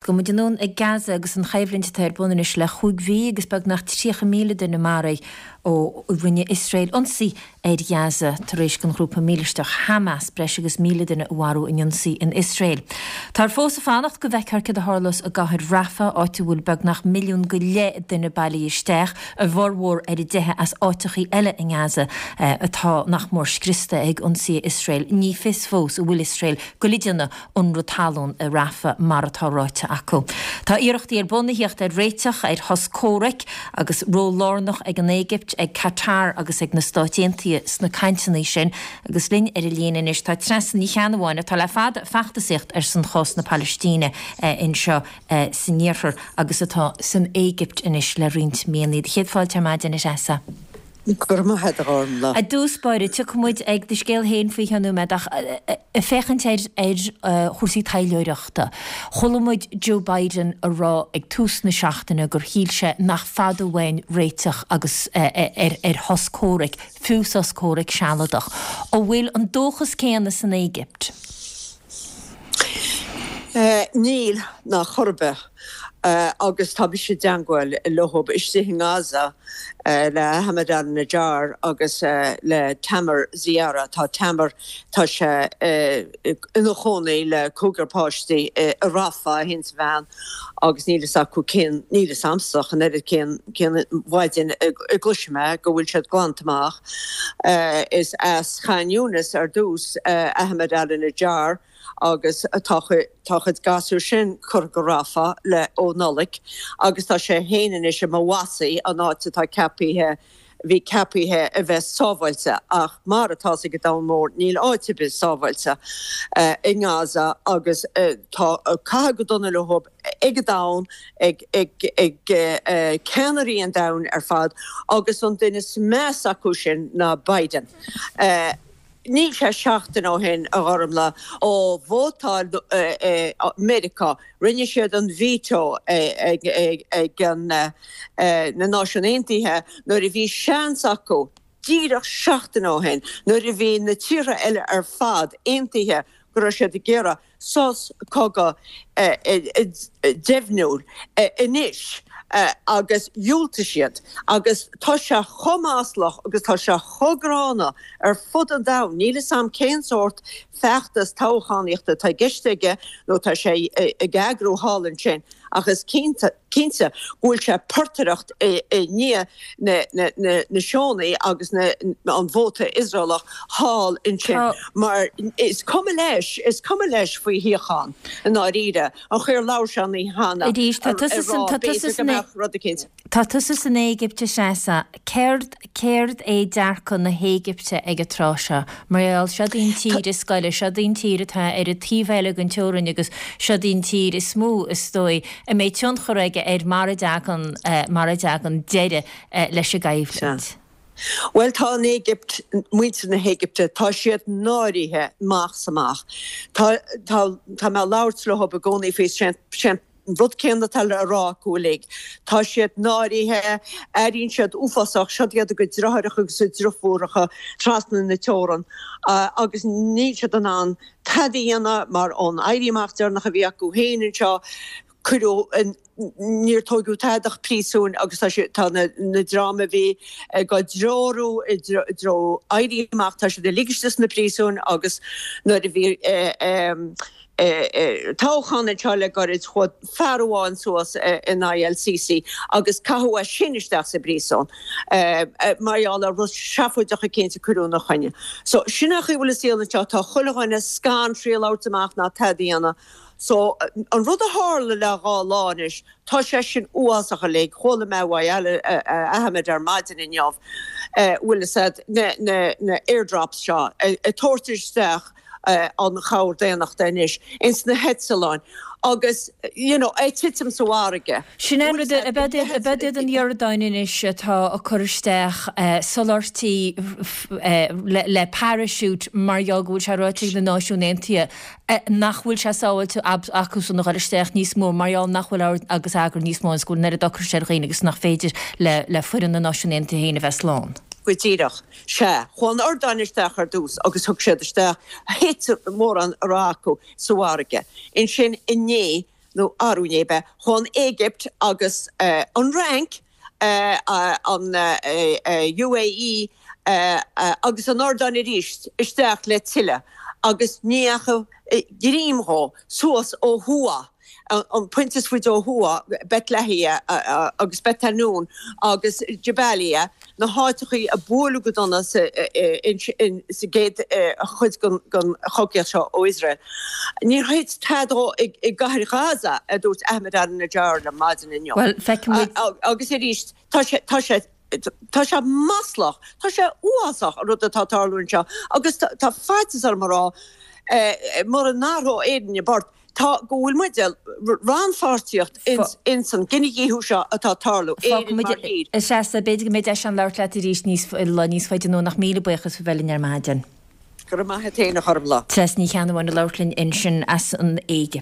Gabhfaidh muid anonn ag Gaza agus an choimhlint atá ar bun anois le chúig mhí agus beagnach 30,000 duine maraithe ó rinne Iosrael ionsaí ar Ghaza tar éis don ghrúpa mílisteach Hamas breis agus 1,000 duine a mharú in ionsaí in Iosrael. Táthar fós ag fanacht go bhfeicfear céard a tharlós i gcathair Rafah, áit a bhfuil beagnach milliún go leith duine bailithe isteach, a bhformhór ar a dteitheadh as áiteachaí eile i nGaza atá nach mór scriosta ag ionsaithe Iosrael. Ní fios fós an bhfuil Iosrael ag goil a dhéanamh ionradh talún i Rafah, mar atá ráite acu. Tá iarrachtaí ar bun a thíocht ar réiteach ar shos comhraic agus ról lárnach ag an Éigipt, ag Qatar agus ag na Stáit Aontaithe sna cainteanna sin. Agus linn ar an líne anois tá Treasa Ní Cheannabháin atá le fada ag feachtasaíocht ar son chás na Palaistíne anseo san iarthar agus atá san Éigipt anois le roinnt míonna. Do chéad fáilte ar maidin, a Threasa. Go raibh maith agat, a Ghormfhlaith. I dtús báire, tiocfaidh muid ag do scéal féin faoi cheann nóiméad ach ag féachaint ar ar chúrsaí taidhleoireachta, chuala muid Joe Biden a rá ag tús na seachtaine gur shíl sé nach fada uainn réiteach agus ar ar shos comhraic, fiú sos comhraic sealadach. An bhfuil an dóchas céanna san Éigipt? Níl, ná chor ar bith. Agus tá mise i dteangmháil leo istigh i nGaza, le Ahmed al-Najjar agus le Tamer Ziara. Tá Tamer, tá sé ina chónaí le cúigear páistí i Rafah, é féin is a bhean, agus níl fhios acu cén, níl fhios a'msa ach an oiread cén, cén mhaidin a gcloisfidh mé go bhfuil siad glanta amach. Is as Khan Younis ar dtús Ahmed al-Najjar agus tá a chuid gasúr sin curtha go Rafah le ó Nollaig agus tá sé féin anois i Mawasi, an áit atá ceapaithe, bhí ceapaithe a bheith sábháilte ach mar atá fhios ag an domhan mór níl áit ar bith sábháilte i nGaza agus tá caithe go dona leo ag an domhan, ag ceannairí an domhain ar fad agus an duine is measa acu sin ná Biden. Níl sé seachtain ó shin, a Ghormfhlaith, ó vótáil Meiriceá, rinne siad an veto ag na Náisiúin Aontaithe nuair a bhí seans acu, díreach seachtain ó shin, nuair a bhí na tíortha eile ar fad aontaithe go raibh siad ag iarraidh sos cogaidh deimhniúil anois agus dhiúltaigh siad agus tá sé chomh maslach agus tá sé chomh gránna ar fud an domhain. Níl 'fhios a'm cén sórt feachtas toghchánaíochta atá i gceist aige nó tá sé ag eagrú thall ansin ach is cinnte cinnte go bhfuil sé ag portaireacht i ndiaidh na Síónaigh agus an vóta Iosraelach thall ansin mar is cuma leis, is cuma leis faoi shíocháin i ndáiríre. An chaoi ar labhair sé an oíche cheana ag rá b'fhéidir go mbeadh rud eicínt. Tá tusa san Éigipt a Threasa. Céard, céard é dearcadh na hÉigipte ag an tráth seo? Mar gheall, seod í an tír is gaire, seod í an tír atá ar an taobh eile den teorainn agus seod í an tír is mó, is dóigh, a mbeidh tionchar aige ar mar a dtagann, mar a dtagann deireadh leis an gcoimhlint. Sea. Bhuel, tá an Éigipt, muintir na hÉigipte, tá siad náirithe amach 's amach. Tá, tá, tá mé ag labhairt leo i gcónaí faoi, sé, An rud céanna atá le rá acu uilig. Tá siad náirithe, airíonn siad uafásach, siod iad a gcuid deartháireacha agus a driofúracha trasna na teorann agus níl siad in ann tada a dhéanamh mar ón éirí amach deireanach a bhí acu féin anseo, cuireadh, níor tóigeadh tada ach príosúin agus tá siad, tá na dream a bhí ag á dtreorú i dtreo éirí amach, tá siad uilig istigh sna príosúin agus nuair a bhí toghchán anseo le gairid, chuaigh fear amháin suas in aghaidh El Sisi agus caitheadh é sin isteach sa bpríosún mar gheall ar rud seafóideach eicínt a cuireadh ina choinne. So, sin é an chaoi a bhfuil an saol anseo, tá chuile dhuine scanraithe labhairt amach ná tada a dhéanamh. So, an rud a tharla le dhá lá anois, tá sé sin uafásach uilig, chuala mé uaidh Ahmed ar maidin inniu, bhfuil fhios a'd, na airdrops seo ag tabhairt isteach, an chabhair daonnachta anois ins na heitleáin agus you know ag titim sa bhfarraige. Sin é an rud, ab iad an Iordáin anois atá ag cur isteach soláthairtí le parachute mar gheall go bhfuil sé ráite ag na Náisiúin Aontaithe nach bhfuil sé sábháilte acusan a dhul isteach níos mó mar gheall nach bhfuil ord agus eagar níos mó agus go bhfuil an oiread ocrais ar dhaoine agus nach féidir le foireann na Náisiún Aontaithe féin a bheith slán. Go díreach. Sea, chuaigh an Iordáin isteach ar dtús agus thug siad isteach, thit mórán a raibh acu sa bhfarraige. Ansin inné. nó arú inné ab ea, chuaigh an Éigipt agus an Fhrainc, an UAE agus an Iordáin arís isteach le tuilleadh agus ní dheachaigh greim dhó suas ó thuaidh, an pointe is faide ó thuaidh, Beit Lahia agus Beit Hanoun agus Jabalia, na háiteachaí a buaileadh go dona sa gcéad chuid den chogaíocht seo ó Iosrael. Níor thit tada dhó i gcathair Ghaza, a dúirt Ahmed al-Najjar liom maidin inniu. Bhuel, feicfidh muid. Agus arís, tá sé, tá sé, tá sé maslach, tá sé uafásach an rud atá ag tarlú anseo agus tá faitíos orm a rá, mura n-athróidh Éirinn a bport, Tá, go bhfuil muid rannpháirtíocht ins an gcinedhíothú seo atá ag tarlú, Éirinn mar thír. A Threasa, b'fhéidir go mbeidh deis ann labhairt leat arís níos, lá níos faide anonn ach míle buíochas faoi bheith linn ar maidin. Go raibh maith a't fhéin a Ghormfhlaith. Treasa Ní Cheannabháin ag labhairt linn ansin as an Éigipt.